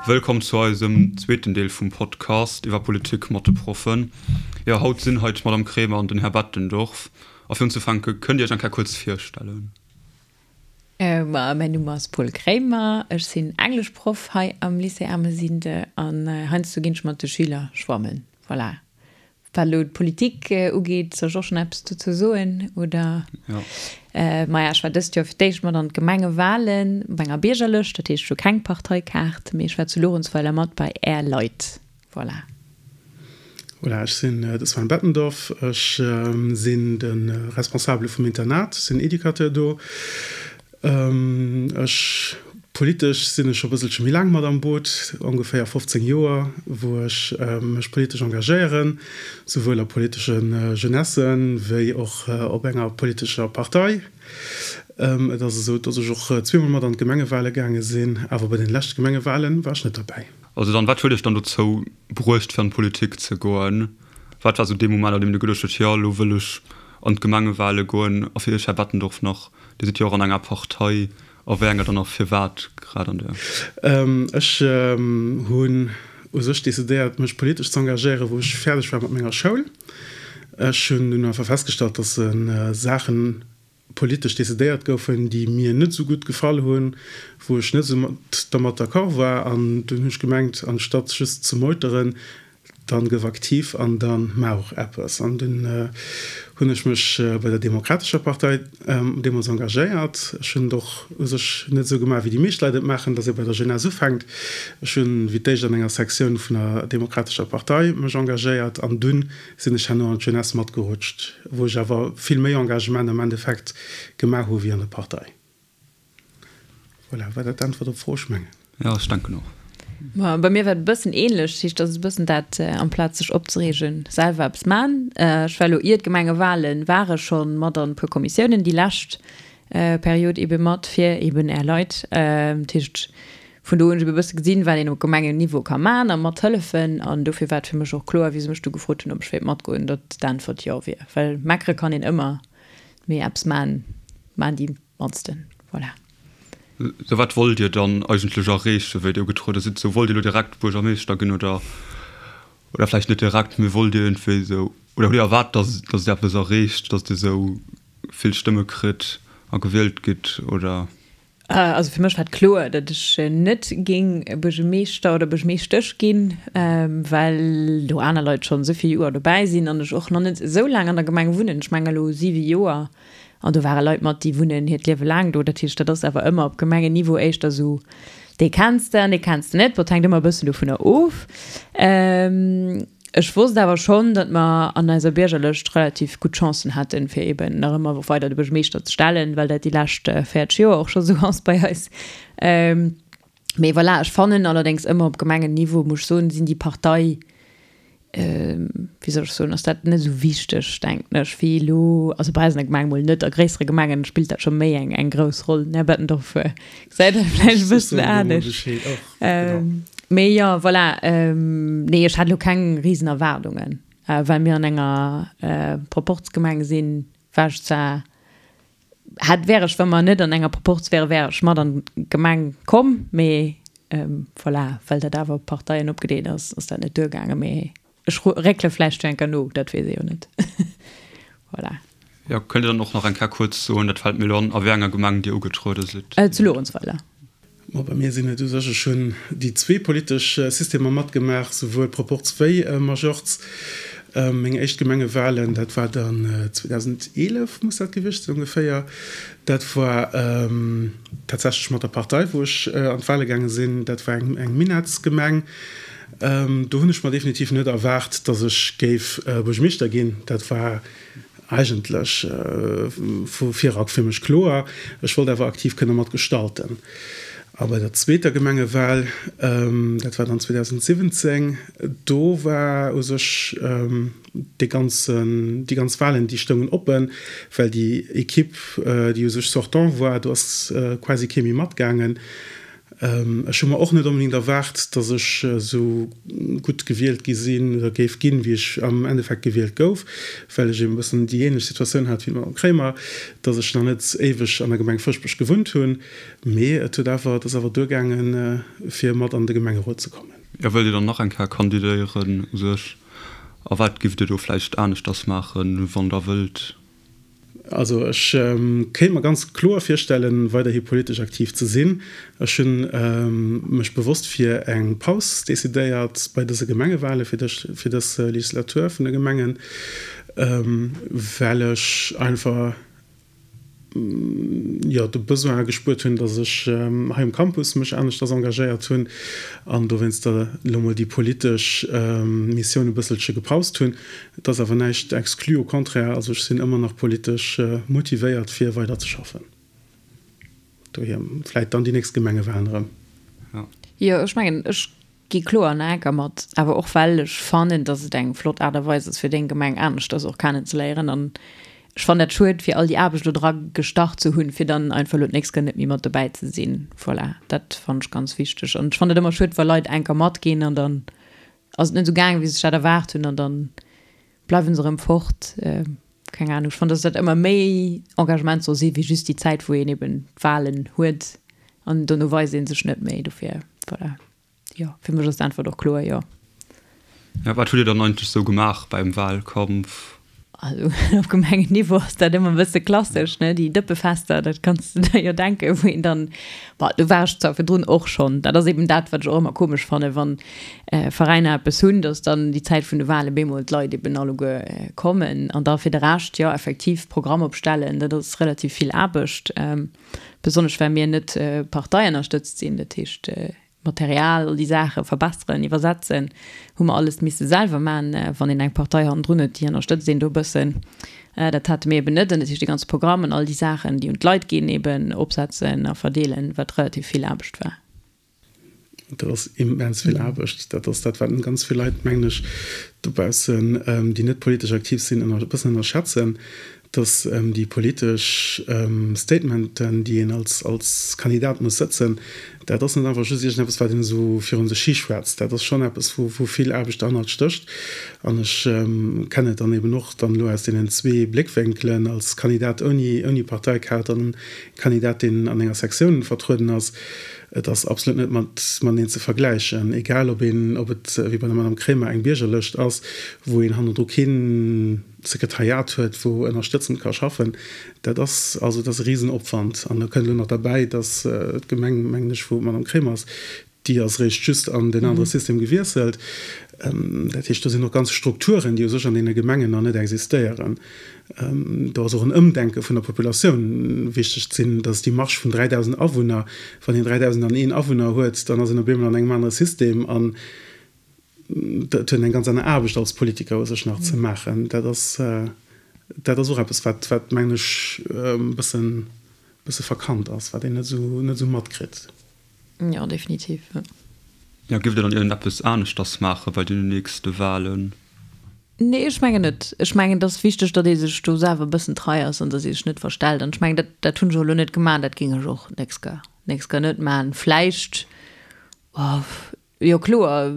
Wëllkomm zu eisem zweeten Deel vum Podcast iwwer Politik mat de Proffen. Jo, haut sinn hei d'Madame Kremer an den Här Bettendorf. A fir unzefänke, kënnt Dir Iech eng Kéier kuerz virstellen? Ma mäin Numm ass Paul Kremer, ech sinn Engleschproff hei am Lycée Ermesinde an heiansdo ginn ech mat de Schüler schwammen. Voilà. Wat elo d'Politik ugeet, soll ech och schonn eppes dozou soen, oder? Jo. Maja, ech war dëst Joer fir d'éischt mat an d'Gemengewalen op enger Biergerlëscht, dat heescht, ech hu keng Parteikaart, mee ech war zu Luerenzweiler mat bei Är Leit. Voilà. Voilà, ech sinn de Sven Bettendorf, ech sinn de Responsabele vum Internat, sinn Educateur do. Ech, politesch sinn ech scho bësselche méi laang mat am Boot, ongeféier 15 Joer, wou ech mech politesch engagéieren, souwuel a politesche Jeunessen, wéi och op enger politescher Partei. Et ass esou, datt ech och zweemol mat an d'Gemengewale gaange sinn, awer bei den leschte Gemengewale war ech net derbäi. Also dann, wat huet iech dann dozou bruecht fir an d'Politik ze goen? Wat war sou dee Moment, an deem Dir geduecht hutt, jo, elo wëll ech an d'Gemengewale goen? A fir Iech, Här Bettendorf, nach, Dir sidd jo och an enger Partei, a wéi enger dann a firwat grad an där? Ech hunn u sech decidéiert, mech politesch ze engagéieren, wou ech fäerdeg war mat menger Schoul. Ech hunn dunn einfach festgestallt, dass Saachen politesch decidéiert goufen, déi mir net esou gutt gefall hunn, wou ech net esou dermat d'accord war. An dunn hunn ech gemengt, anstatt just ze meuteren, dann gëff aktiv an da maach och eppes. An dunn hunn ech mech bei der Demokratescher Partei deemools engagéiert. Ech hunn et och u sech net esou gemaach, wéi déi meescht Leit et maachen, dass ee bei der Jeunesse ufänkt. Ech hunn wéi d'éischt an enger Sektioun vun der Demokratescher Partei mech engagéiert an dunn sinn ech herno an d'Jeunesse matgerutscht, wou ech awer vill méi Engagement am Endeffekt gemaach hu wéi an der Partei. Voilà, war dat d'Äntwert op d'Fro? Ech mengen. Jo, ech denken och. Ma bei mir war et e bëssen ähnlech, dat heescht, dat ass e bëssen dat, amplaz sech opzereegen, selwer eppes man. Ech war elo ier d'Gemengewalen war ech scho mat an e puer Kommissiounen déi lescht Period ebe mat fir eben Är Leit. Dat heescht, vun do hunn ech ebe e bësse gesinn, wat een op Gemengenniveau ka man a mat hëllefen. An dofir war et fir mech och kloer, wéi se mech du gefrot hunn, ob ech wéilt matgoen, datt d'Äntwert jo wier. Well meckere kann een ëmmer, mee eppes man, man déi Mannsten, voilà. Sou, wat wollt Dir dann eigentlech erreechen, wéi Dir ugetruede sidd? Sou, wollt Dir elo direkt Buergermeeschter ginn oder, oder vläicht net direkt, mee wollt Dir iergendwéi esou, oder hutt Dir erwaart, dass, dass Dir eppes erreecht, dass Dir esou vill Stëmme kritt a gewielt gitt, oder? Also fir mech war et kloer, datt ech net géing Buergermeeschter oder Buergermeeschtesch ginn, well do aner Leit schonn esou vill Joer dobäi sinn an ech och nach net esou laang an der Gemeng wunnen, ech mengen elo siwe Joer. An do ware Leit mat, déi wunnen hiert Liewe laang do. Dat heescht, dat ass awer ëmmer op Gemengenniveau éischter esou, dee kenns de an dee kenns de net. Bon, et hänkt ëmmer e bëssen dovunner of. Ech wosst awer schonn, datt mer an eiser Biergerlëscht relativ gutt Chancen hätten, fir eeben nach ëmmer weider de Buergermeeschter ze stellen, well dat déi lescht 40 Joer och scho sou ass bei eis. Mee voilà, ech fannen allerdéngs ëmmer op Gemengenniveau, muss ech soen, sinn déi Partei, wéi soll ech soen, ass dat net esou wichteg, denken ech, wéi elo, also bei eis an der Gemeng mol net, a gréissere Gemengen spillt dat scho méi eng eng grouss Roll. Den Här Bettendorf gesäit dat vläicht e bëssen anescht. Mee jo, voilà, nee, ech hat elo keng risen Erwaardungen, well mir an enger Proporzgemeng sinn, war ech zwar Hätt, wär ech, wa mer net an enger Proporz wären, wär ech mat an d'Gemeng komm, mee voilà, well dat awer op Parteien opgedeelt ass, ass dat net duergaangen. Mee ech réckele vläicht jo eng Kéier no, dat weess ee jo net. Voilà. Jo, kënnt Dir dann och nach eng Kéier kuerz soen, dat fält mir elo an, a wéi enger Gemeng Dir ugetruede sidd? Zu Luerenzweiler. Ma bei mir sinn et u sech, ech hunn déi zwee politesch Systemer matgemaach, souwuel Proporz wéi Majorz. Meng éischt Gemengewahlen, dat war dann 2011 muss dat gewiescht sinn ongeféier, dat war tatsächlech mat der Partei, wou ech an d'Wahle gaange sinn. Dat war eng Minettsgemeng. Do hunn ech mer definitiv net erwaart, datt ech géif Buergermeeschter ginn. Dat war Eigentlech vu virak fir mech kloer, ech wollt awer aktiv kënne mat gestalten. A bei der zweeter Gemengewal, dat war dann 2017, do war u sech dee ganzen, déi ganz Walen, déi stoungen oppen, well déi Equipe, déi u sech sortant war, do ass quasi kee méi matgaangen. Ech hu mer och net onbedéngt erwaart, datt ech esou gutt gewielt gi sinn oder géif ginn, wéi ech am Endeffekt gewielt gouf, well ech eben e bëssen déi ähnlech Situatioun hat wéi d'Madame Kremer, datt ech nach net éiweg an der Gemeng Fëschbech gewunnt hunn. Mee et huet awer, et ass awer duergaangen, fir mat an de Gemengerot ze kommen. Jo, wëllt Dir dann nach eng Kéier kandidéieren u sech? A wat giff Dir do vläicht aneschters maachen, wann Der wëllt? Also ech kéint mer ganz kloer virstellen, weiderhi politesch aktiv ze sinn. Ech hunn mech bewosst fir eng Paus decidéiert bei dëse Gemengewale fir dës Legislatur vun de Gemengen, well ech einfach, jo, de Besoin gespuert hunn, datt ech hei um Campus mech aneschters engagéiert hunn an dowéinster elo mol déi politesch Missioun e bësselche gepaust hunn. Et ass awer näischt exclu, au contraire, also ech sinn ëmmer nach politesch motivéiert fir weider ze schaffen. Dohier vläit dann déi nächst Gemengewalen erëm. Jo, ech mengen, ech Gi kloer an enker mat, awer och well ech fannen, dass et eng flott Aart a Weis ass fir deng Gemeng aneschters och kennen ze léieren an ech fannen dat schued fir all déi Aarbecht elo dra gestach ze hunn fir dann einfach elo d'nächst Kéier net méi mat dobäi ze sinn. Voilà, dat fannen ech ganz wichteg an ech fannen et ëmmer schued wa Leit enker matginn an dann ass et net esou gaangen wéi se sech dat erwaart hunn an dann bleiwen se erëm fort. Keng Ahnung, ech fannen, dass dat ëmmer méi Engagement soll si wéi just déi Zäit, wou een eben d'Wahlen huet an dono weist ee sech net méi. Dofir, voilà, jo, fir mech ass d'Äntwert och kloer, jo. Ja, wat hutt Dir dann eigentlech sou gemaach beim Wahlkampf? Also op Gemengenniveau ass dat ëmmer e bësse klassesch, ne, déi Dëppefester, dat kanns de der jo denken, wou een dann, bon, do war ech zwar virdrun och schonn, dat ass eben dat, wat ech och ëmmer komesch fannen, wann Veräiner eppes hunn, dass dann déi Zäit vun de Wahlen bemol d'Leit eben alleguer kommen. An da fir de Rescht, jo, effektiv Programm opstellen, dat ass relativ vill Aarbecht, besonnesch well mir net parteiennerstëtzt sinn. Dat heescht, Material, all déi Saache verbesseren, iwwersetzen, hu mer alles misse selwer maachen. Wann een eng Partei hannendrun huet, déi ënnerstëtzt een do e bëssen. Dat hate mir eben net. An dat heescht, dee ganze Programm an all déi Saachen, déi un d'Leit ginn, eben opsetzen a verdeelen, wat relativ vill Aarbecht war. Dat ass immens vill Aarbecht. Dat ass dat, wat ganz vill Leit, mengen ech, dobaussen, déi net politesch aktiv sinn, e bëssen ënnerschätzen, dass déi politesch Statementen, déi een als Kandidat muss sëtzen, dat ass net einfach just iergendeppes, wat een esou virun sech hi schwätzt. Dat ass schonn eppes, wou vill Aarbecht derhannert stécht. An ech kennen et dann eben och dann elo aus deenen zwee Bléckwénkelen, als Kandidat ouni Parteikaart an Kandidat, deen an enger Sektioun vertrueden ass. Et ass absolut net mat mateneen ze vergläichen, egal ob een, ob et wéi bei der Madame Kremer eng Biergerlëscht ass, wou een hannendru kee Sekretariat huet, wou ënnerstëtzend ka schaffen. Dat ass also, dat ass e Risenopwand. An da kënnt elo nach derbäi, datt d'Gemeng, mengen ech, wou d'Madame Kremer ass, déi ass eréischt just an deen anere System gewiesselt. Dat heescht, do sinn och ganz Strukturen, déi u sech an deene Gemengen nach net existéieren. Do ass och en Ëmdenke vun der Populatioun wichteg. Et sinn, dat ass déi Marge vun 3.000 Awunner. Wann een 3.001 Awunner huet, dann ass een op eemol an engem anere System an et huet een eng ganz aner Aarbecht als Politiker u sech nach ze maachen. Dat ass, dat ass och eppes, wat, wat mengen ech, e bëssen, bësse verkannt ass, wat een net esou, net esou matkritt. Jo, definitiv. Jo, giff der dann iergendeppes aneschters maache bei den nächste Wahlen? Nee, ech mengen net. Ech mengen, et ass wichteg, datt ee sech do selwer e bëssen trei ass an datt ee sech net verstellt. An ech mengen, dat, dat hunn ech och elo net gemaach an dat géing ech och nächst Kéier, nächst Kéier net maachen. Vläicht, oh, jo kloer,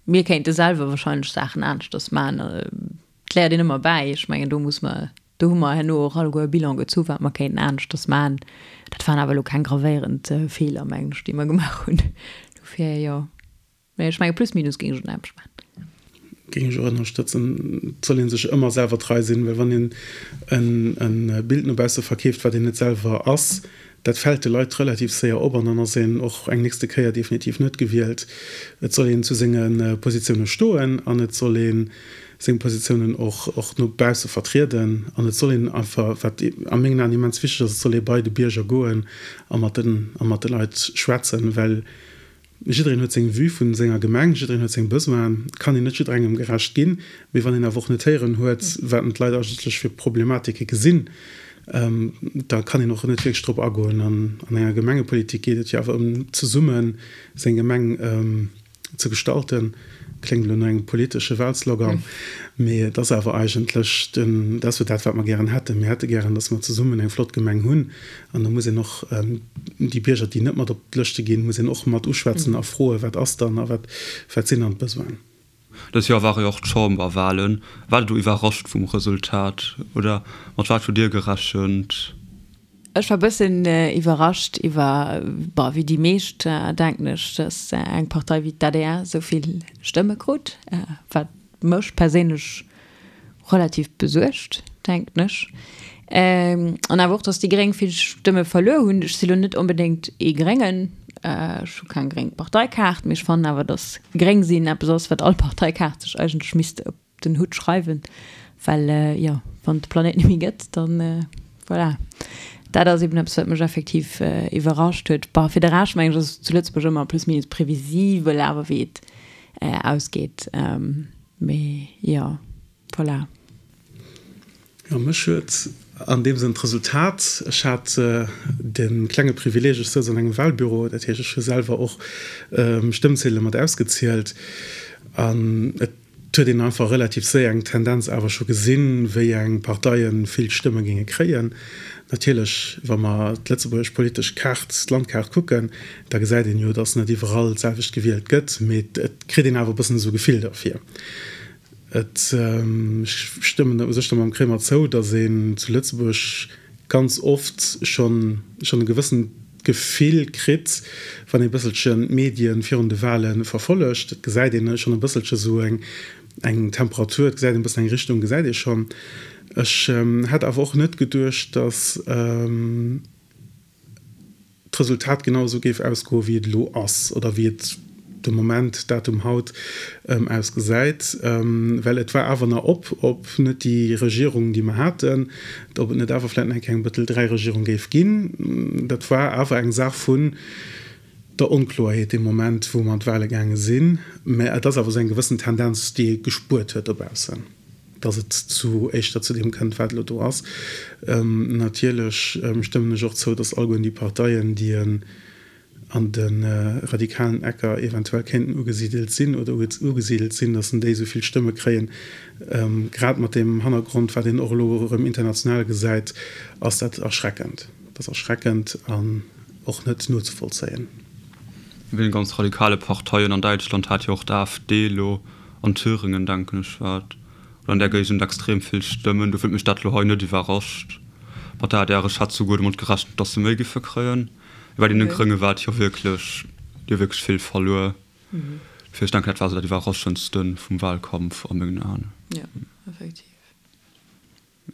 mir kéinte selwer wahrscheinlech Saachen aneschters maachen. Et léiert een ëmmer bäi. Ech mengen, do muss mer Do hu mer herno och alleguer e Bilan gezu wat mer kéinten aneschters maachen. Dat waren awer elo keng gravéierend Feeler, mengen ech, déi mer gemaach hunn. Dofir, jo. Mee ech menge plus minus géing ech et anescht maachen. Géing ech och ënnerstëtzen. Et soll ee sech ëmmer selwer trei sinn, well wann een e Bild no bausse verkeeft, wat een net selwer ass, dat fält de Leit relativ séier op an dann ass een och eng nächste Kéier definitiv net gewielt. Et soll een zu senge Positioune stoen an et soll ee seng Positiounen och och no bausse vertrieden an et soll een einfach, wat a mengen Aen immens wichteg ass, et soll ee bei de Bierger goen a mat den a mat de Leit schwätzen, well Jiddereen huet seng Vue vun senger Gemeng, jiddereen huet seng Besoinen. Et kann een net jidderengem gerecht ginn. Mee wann een awer och net héieren huet, wat d'Leit eigentlech fir Problematike gesinn, da kann een och net wierklech drop agoen. An an enger Gemengepolitik geet et jo awer ëm zesummen seng Gemeng. ze gestalten. Kléngt elo no engem politesche Wahlslogan, mee et ass awer eigentlech den, dat ass jo dat, wat mer gären hätten. Mir hätte gären, dass mer zesummen eng flott Gemeng hunn. An da muss een och déi Bierger, déi net mat op d'Lëschte ginn, muss een och mat uschwätzen a froen, wat ass dann a wat, wat sinn dann d'Besoinen. Dës Joer ware jo och d'Chamberwahlen. Waart Der do iwwerrascht vum Resultat oder mat wat hutt Dir gerechent? Ech war bëssen iwwerrascht iwwer, bon, wéi déi meescht, denken ech, dass eng Partei wéi d'ADR esou vill Stëmme krut, wat mech perséinlech relativ besuergt, denken ech. An awer och, dass déi Gréng vill Stëmme verluer hunn. Ech si lo net onbedéngt ee Gréngen, ech hu keng gréng Parteikaart, mee ech fannen awer, dass gréng sinn eppes ass, wat all Parteikaart sech eigentlech misst op den Hutt schreiwen, well jo, wann et de Planéit net méi gëtt, dann voilà. Dat ass eben eppes, wat mech effektiv iwwerrascht huet. Bon, fir de Rescht mengen ech, ass et zu Lëtzebuerg ëmmer plus minus previsibel awer wéi et ausgeet. Mee jo, voilà. Jo, mech huet an deem Sënn d'Resultat, ech hat de klenge Privileeg, ech souz an engem Wahlbüro, dat heescht, ech hu selwer och Stëmmziedele mat ausgezielt an et huet een einfach relativ séier eng Tendenz awer scho gesinn, wéi eng Parteie vill Stëmme géinge kréien. Natierlech, wa mer d'lëtzebuergesch politesch Kaart, d'Landkaart kucken, da gesäit een jo, datt net iwwerall d'selwecht gewielt gëtt, mee et kritt een awer e bëssen esou e Gefill derfir. Et, ech stëmmen u sech da mam Kremer zou, datt een zu Lëtzebuerg ganz oft schonn schonn e gewëssent Gefill kritt, wann ee bësselchen d'Medien virun de Wahle verfollegt. Et gesäit een schonn e bësselche sou eng eng Temperatur, et gesäit een e bëssen eng Richtung gesäit ee schonn. Ech hätt awer och net geduecht, datt d'Resultat genau esou géif ausgoen, wéi et elo ass oder wéi et de Moment, Datum haut, ausgesäit, well et war awer nach op, ob net déi Regierung, déi mer haten, ob et net awer vläicht nach eng Kéier eng Bëttel 3 Regierung géif ginn. Dat war awer eng Saach vun der Onkloerheet dee Moment, wou mer an d'Wahle gaange sinn. Mä et ass awer esou eng gewëssen Tendenz, déi ee gespuert huet dobaussen, dass et zu éischter zu deem kënnt, wat elo do ass. Natierlech stëmmen ech och zou, dass alleguerten déi Parteien, déi en an de radikalen Ecker eventuell kéinten ugesidelt sinn oder ugesidelt sinn, dass en déi esou vill Stëmme kréien. Grad mat deem Hannergrond, wat een och elo erëm international gesäit, ass dat erschreckend. Dat ass erschreckend an och net nozevollzéien. Bei den ganz radikale Parteien an Däitschland hat jo och d'AfD elo an Thüringen, denken ech war et, oder an där Géigend extrem vill Stëmmen. Dofir huet mech dat elo hei net iwwerrascht. Mat der adr, ech hat souguer domat gerechent, dass se méi giffe kréien. Bei deene Grénge war et jo wierklech, déi hu wierklech vill verluer. Dofir, ech denken, dat war esou dat Iwwerraschendste vum Wahlkampf a mengen Aen. Jo, effektiv.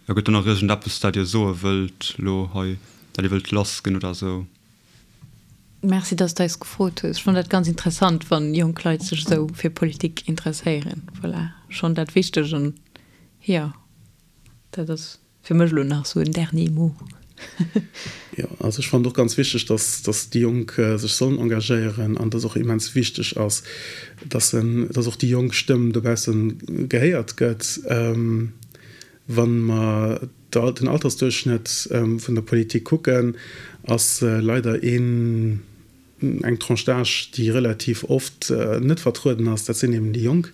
Jo, gëtt do nach iergendeppes, dat Dir soe wëllt elo hei, dat Dir wëllt lassginn oder esou? Merci, dass de eis gefrot hues. Ech fannen dat ganz interessant, wann jonk Leit sech esou fir Politik interesséieren. Voilà, schonn dat wichteg an jo, dat ass fir mech elo nach esou en dernier mot. Jo, also ech fannen et och ganz wichteg, dass, dass déi Jonk sech sollen engagéieren an dass och immens wichteg ass, dass en, dass och déi jonk Stëmm dobausse gehéiert gëtt. Wa mer den Altersduerchschnëtt vun der Politik kucken, ass leider een, eng Tranche d'âge, déi relativ oft net vertrueden ass, dat sinn eben déi Jonk.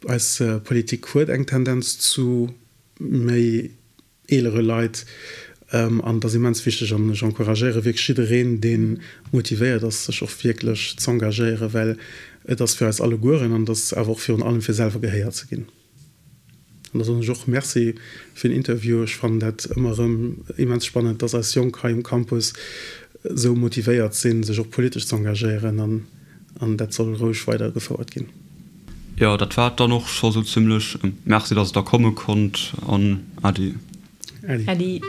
Eis Politik huet eng Tendenz zu méi eelere Leit an et ass immens wichteg an ech encouragéiere wierklech jiddereen, dee motivéiert ass, sech och wierklech z'engagéieren, well et ass fir eis allegueren an et ass awer och virun allem fir selwer gehéiert ze ginn. An da soen ech och Merci fir den Interview. Ech fannen dat ëmmer erëm immens spannend, dass eis Jonk hei um Campus esou motivéiert sinn, sech och politesch z'engagéieren an an dat soll roueg weider gefouert ginn. Jo, dat war et dann och scho sou zimlech. Merci, dass et der komme konnt an Äddi. Äddi. Äddi.